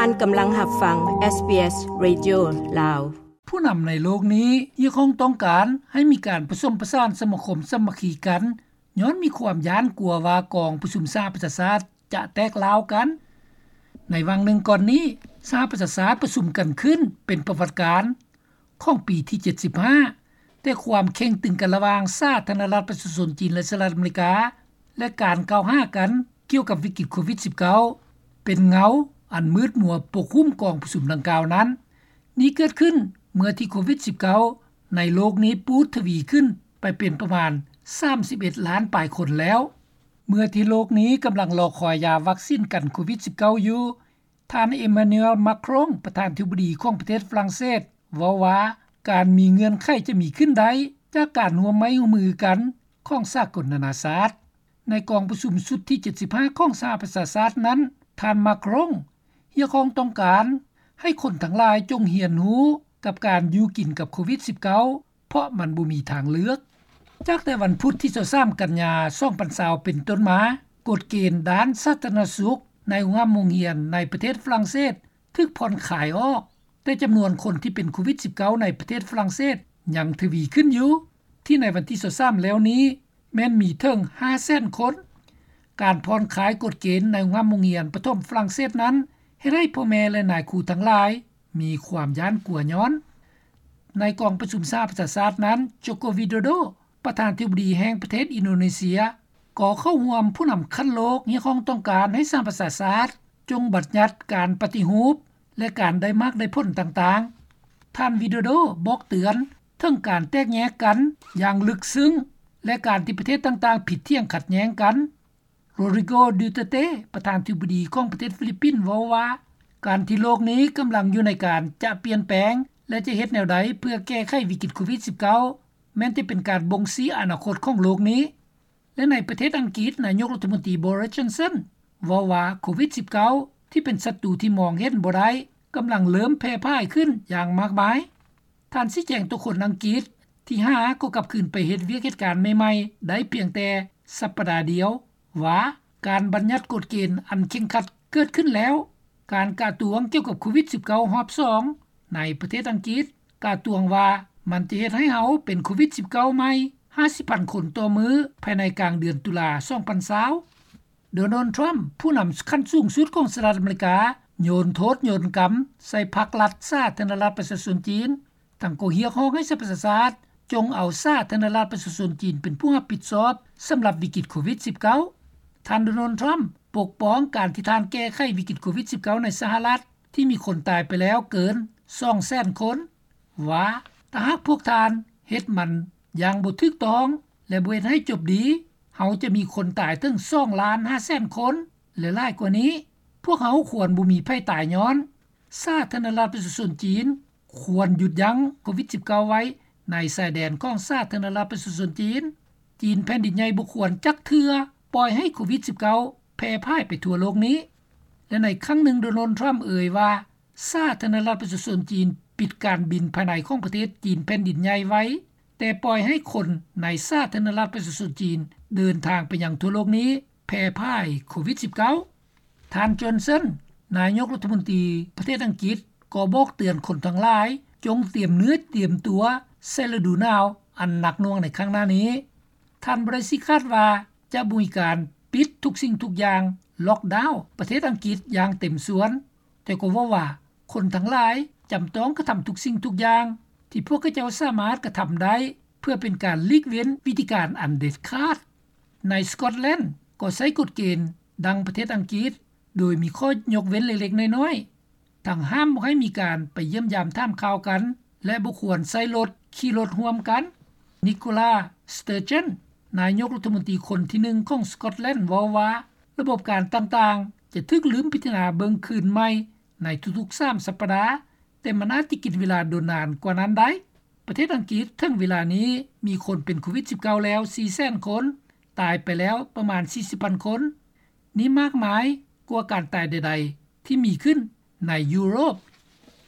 ທ່ານກຳລັງຮັບຟັງ SBS Radio ລາວ. ຜູ້ນຳໃນໂລກນີ້ຮຽກຮ້ອງຕ້ອງການໃຫ້ມີການປະສົມປະສານສະມາຄົມສາມັກຄີກັນ ຍ້ອນມີຄວາມຢ້ານກົວວ່າກອງປະຊຸມສະຫະປະຊາຊາດຈະແຕກລ້າວກັນ. ໃນຫວ່າງໜຶ່ງກ່ອນນີ້ ສະຫະປະຊາຊາດປະຊຸມກັນຂຶ້ນເປັນປະຫວັດການ ຂອງປີທີເຈັດສິບຫ້າ, ແຕ່ຄວາມເຄັ່ງຕຶງກັນລະຫວ່າງສາທາລະນະລັດປະຊາຊົນຈີນ ແລະ ສະຫະລັດອາເມລິກາ ແລະ ການກ່າວຫາກັນກ່ຽວກັບວິກິດໂຄວິດສິບເກົ້າ ເປັນເງົາອັນມືດມົວປົກຫຸ້ມກອງປະຊຸມດັ່ງກ່າວນັ້ນ. ນີ້ເກີດຂຶ້ນເມື່ອທີ່ໂຄວິດສິບເກົ້າໃນໂລກນີ້ປູດທະວີຂຶ້ນໄປເປັນປະມານສາມສິບເອັດລ້ານປາຍຄົນແລ້ວ. ເມື່ອທີ່ໂລກນີ້ກຳລັງລໍຄອຍຢາວັກຊິນກັນໂຄວິດສິບເກົ້າຢູ່, ທ່ານ Emmanuel Macron ປະທານທິບໍດີຂອງປະເທດຝຣັ່ງເສດ ເວົ້າວ່າການມີເງື່ອນໄຂຈະມີຂຶ້ນໄດ້ຈາກການຮ່ວມໄມ້ຮ່ວມມືກັນຂອງສາກົນນານາຊາດ. ໃນກອງປະຊຸມຊຸດທີເຈັດສິບຫ້າຂອງສະຫະປະຊາຊາດນັ້ນ, ທ່ານ Macron ຮຽກຮ້ອງຕ້ອງການໃຫ້ຄົນທັງຫຼາຍຈົ່ງຮຽນຮູ້ກັບການຢູ່ກິນກັບໂຄວິດສິບເກົ້າ ເພາະມັນບໍ່ມີທາງເລືອກ. ຈາກແຕ່ວັນພຸດທີຊາວສາມກັນຍາ ສອງພັນຊາວເປັນຕົ້ນມາ, ກົດເກນດ້ານສາທາລະນະສຸກໃນໂຮງຮ່ຳໂຮງຮຽນໃນປະເທດຝຣັ່ງເສດຖືກຜ່ອນຄາຍອອກ, ແຕ່ຈຳນວນຄົນທີ່ເປັນໂຄວິດສິບເກົ້າໃນປະເທດຝຣັ່ງເສດຍັງທະວີຂຶ້ນຢູ່, ທີ່ໃນວັນທີຊາວສາມແລ້ວນີ້ແມ່ນມີເຖິງຫ້າແສນຄົນ. ການຜ່ອນຄາຍກົດເກນໃນໂຮງຮ່ຳໂຮງຮຽນປະຖົມຝຣັ່ງເສດນັ້ນ ເຮັດໃຫ້ພໍ່ແມ່ ແລະ ນາຍຄູທັງຫຼາຍ ມີຄວາມຢ້ານກົວຍ້ອນ. ໃນກອງປະຊຸມສະຫະປະຊາຊາດນັ້ນ, Joko Widodo ປະທານທິບໍດີແຫ່ງປະເທດອິນໂດເນເຊຍ ກໍເຂົ້າຮ່ວມຜູ້ນຳຂັ້ນໂລກຮຽກຮ້ອງຕ້ອງການໃຫ້ສະຫະປະຊາຊາດຈົ່ງບັນຍັດການປະຕິຮູບ ແລະ ການໄດ້ໝາກໄດ້ຜົນຕ່າງໆ. ທ່ານ Widodo ບອກເຕືອນເຖິງການແຕກແຍກກັນຢ່າງເລິກເຊິ່ງ ແລະ ການທີ່ປະເທດຕ່າງໆຜິດຖຽງຂັດແຍ້ງກັນ. Rodrigo Duterte ປະທານທິບໍດີຂອງປະເທດຟີລິບປິນ ເວົ້າວ່າ ການທີ່ໂລກນີ້ກຳລັງຢູ່ໃນການຈະປ່ຽນແປງ ແລະ ຈະເຮັດແນວໃດເພື່ອແກ້ໄຂວິກິດໂຄວິດສິບເກົ້າ ແມ່ນຈະເປັນການບົ່ງຊີ້ອະນາຄົດຂອງໂລກນີ້. ແລະ ໃນປະເທດອັງກິດ, ນາຍົກລັດຖະມົນຕີ Boris Johnson ເວົ້າວ່າໂຄວິດສິບເກົ້າ ທີ່ເປັນສັດຕູທີ່ມອງເຫັນບໍ່ໄດ້ ກຳລັງເລີ່ມແຜ່ພາຍຂຶ້ນຢ່າງມາກມາຍ. ທ່ານຊີ້ແຈງຕໍ່ຄົນອັງກິດທີ່ຫາກໍກັບຄືນໄປເຮັດວຽກເຮັດການໃໝ່ໆໄດ້ພຽງແຕ່ສັບປະດາດຽວວ່າ ການບັນຍັດກົດເກນອັນເຄັ່ງຄັດເກີດຂຶ້ນແລ້ວ. ການກະຕວງກ່ຽວກັບໂຄວິດສິບເກົ້າຮອບສອງໃນປະເທດອັງກິດ ກະຕວງວ່າມັນຈະເຮັດໃຫ້ເຮົາເປັນໂຄວິດສິບເກົ້າໃໝ່ຫ້າສິບພັນຄົນຕໍ່ມື້ ພາຍໃນກາງເດືອນຕຸລາສອງພັນຊາວ. Donald Trump ຜູ້ນຳຂັ້ນສູງສຸດຂອງສະຫະລັດອາເມລິກາ ໂຍນໂທດໂຍນກຳໃສ່ພັກລັດສາທາລະນະລັດປະຊາຊົນຈີນ, ທັງກໍຮຽກຮ້ອງໃຫ້ສະຫະປະຊາຊາດຈົ່ງເອົາສາທາລະນະລັດປະຊາຊົນຈີນເປັນຜູ້ຮັບຜິດຊອບສຳລັບວິກິດໂຄວິດສິບເກົ້າ. ທ່ານ Donald Trump ປົກປ້ອງການທີ່ທ່ານແກ້ໄຂວິກິດໂຄວິດສິບເກົ້າໃນສະຫະລັດ ທີ່ມີຄົນຕາຍໄປແລ້ວເກີນສອງແສນຄົນ ວ່າ ຖ້າຫາກພວກທ່ານເຮັດມັນຢ່າງບໍ່ຖືກຕ້ອງ ແລະ ບໍ່ເຮັດໃຫ້ຈົບດີ, ເຮົາຈະມີຄົນຕາຍເຖິງສອງລ້ານຫ້າແສນຄົນ ແລະ ຫຼາຍກວ່ານີ້. ພວກເຮົາຄວນບໍ່ມີໃຜຕາຍຍ້ອນ. ສາທາລະນະລັດປະຊາຊົນຈີນຄວນຢຸດຢັ້ງໂຄວິດສິບເກົ້າໄວ້ໃນຊາຍແດນຂອງສາທາລະນະລັດປະຊາຊົນຈີນ. ຈີນແຜ່ນດິນໃຫຍ່ບໍ່ຄວນຈັກເທື່ອປ່ອຍໃຫ້ໂຄວິດສິບເກົ້າແຜ່ພາຍໄປທົ່ວໂລກນີ້. ແລະ ໃນຄັ້ງໜຶ່ງ Donald Trump ເອີຍວ່າ ສາທາລະນະລັດປະຊາຊົນຈີນປິດການບິນພາຍໃນຂອງປະເທດຈີນແຜ່ນດິນໃຫຍ່ໄວ້, ແຕ່ປ່ອຍໃຫ້ຄົນໃນສາທາລະນະລັດປະຊາຊົນຈີນເດີນທາງໄປຍັງທົ່ວໂລກນີ້ແຜ່ພາຍໂຄວິດສິບເກົ້າ. ທ່ານ Johnson ນາຍົກລັດຖະມົນຕີປະເທດອັງກິດ ກໍບອກເຕືອນຄົນທັງຫຼາຍ ຈົ່ງຕຽມເນື້ອຕຽມຕົວໃສ່ລະດູໜາວອັນໜັກໜ່ວງໃນຄັ້ງໜ້ານີ້. ທ່ານ Brexit ຄາດວ່າຈະບໍ່ມີການປິດທຸກສິ່ງທຸກຢ່າງ, ລັອກດາວປະເທດອັງກິດຢ່າງເຕັມສ່ວນ, ແຕ່ກໍເວົ້າວ່າຄົນທັງຫຼາຍຈຳຕ້ອງກະທຳທຸກສິ່ງທຸກຢ່າງທີ່ພວກເຂົາເຈົ້າສາມາດກະທຳໄດ້ ເພື່ອເປັນການຫຼີກເວັ້ນວິທີການອັນເດັດຂາດ. ໃນ Scotland ກໍໃຊ້ກົດເກນດັ່ງປະເທດອັງກິດ ໂດຍມີຂໍ້ຍົກເວັ້ນເລັກໆນ້ອຍໆ, ທັງຫ້າມບໍ່ໃຫ້ມີການໄປຢ້ຽມຢາມຖາມຂ່າວກັນ ແລະ ບໍ່ຄວນໃຊ້ລົດຂີ່ລົດຮ່ວມກັນ. Nicola Sturgeon ນາຍົກລັດຖະມົນຕີຄົນທີໜຶ່ງຂອງ Scotland ເວົ້າວ່າ ລະບົບການຕ່າງໆຈະຖືກລືມພິຈາລະນາເບິ່ງຄືນໃໝ່ໃນທຸກໆສາມສັບປະດາ, ແຕ່ມັນອາດຈະກິນເວລາດົນນານກວ່ານັ້ນໄດ້. ປະເທດອັງກິດເຖິງເວລານີ້ມີຄົນເປັນໂຄວິດສິບເກົ້າແລ້ວສີ່ແສນຄົນ, ຕາຍໄປແລ້ວປະມານສີ່ສິບພັນຄົນ. ນີ້ມາກມາຍກວ່າການຕາຍໃດໆທີ່ມີຂຶ້ນໃນຢູໂຣບ.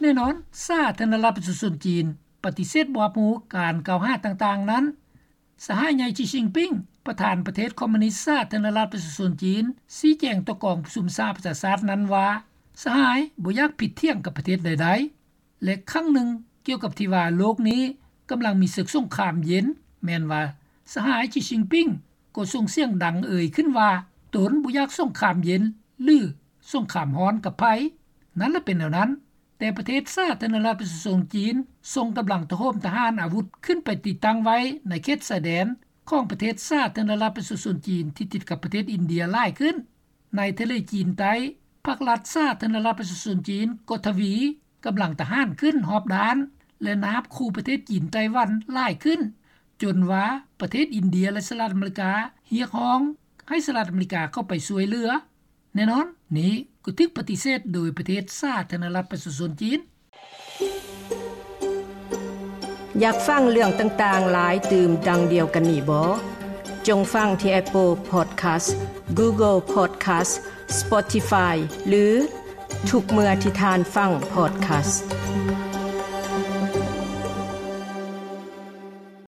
ແນ່ນອນ, ສາທາລະນະລັດປະຊາຊົນຈີນປະຕິເສດບໍ່ຮັບຮູ້ການກ່າວຫາຕ່າງໆນັ້ນ. ສະຫາຍໃຫຍ່ Xi Jinping ປະທານປະເທດຄອມມູນິດສາທາລະນະລັດປະຊາຊົນຈີນ ຊີ້ແຈງຕໍ່ກອງປະຊຸມສະຫະປະຊາຊາດນັ້ນວ່າ ສະຫາຍບໍ່ຢາກຜິດຖຽງກັບປະເທດໃດໆ ແລະຄັ້ງໜຶ່ງກ່ຽວກັບທີ່ວ່າໂລກນີ້ກຳລັງມີເສິກສົງຄາມເຢັນ ແມ່ນວ່າສະຫາຍ Xi Jinping ກໍສົ່ງສຽງດັງເອີ່ຍຂຶ້ນວ່າ ຕົນບໍ່ຢາກສົງຄາມເຢັນ ຫຼືສົງຄາມຮ້ອນກັບໃຜ. ນັ້ນລະເປັນແນວນັ້ນ ແຕ່ປະເທດສາທາລະນະລັດປະຊາຊົນຈີນ ສົ່ງກຳລັງໂຫມທະຫານອາວຸດຂຶ້ນໄປຕິດຕັ້ງໄວ້ໃນເຂດຊາຍແດນ ຂອງປະເທດສາທາລະນະລັດປະຊາຊົນຈີນ ທີ່ຕິດກັບປະເທດອິນເດຍຫຼາຍຂຶ້ນ. ໃນທະເລຈີນໃຕ້ ພັກລັດສາທາລະນະລັດປະຊາຊົນຈີນ ກໍທະວີກຳລັງທະຫານຂຶ້ນຮອບດ້ານ ແລະນາບຂູ່ປະເທດຈີນ-ໄຕ້ຫວັນຫຼາຍຂຶ້ນ ຈົນວ່າປະເທດອິນເດຍ ແລະສະຫະລັດອາເມລິກາ ຮຽກຮ້ອງໃຫ້ສະຫະລັດອາເມລິກາເຂົ້າໄປຊ່ວຍເຫຼືອ. ແນ່ນອນ ນີ້ກໍຖືກປະຕິເສດໂດຍປະເທດສາທາລະນະລັດປະຊາຊົນຈີນ. ຢາກຟັງເລື່ອງຕ່າງໆຫຼາຍຕື່ມດັ່ງດຽວກັນນີ້ບໍ່? ຈົ່ງຟັງທີ່ Apple Podcast, Google Podcast, Spotify ຫຼືທຸກເມື່ອທີ່ທ່ານຟັງ podcast.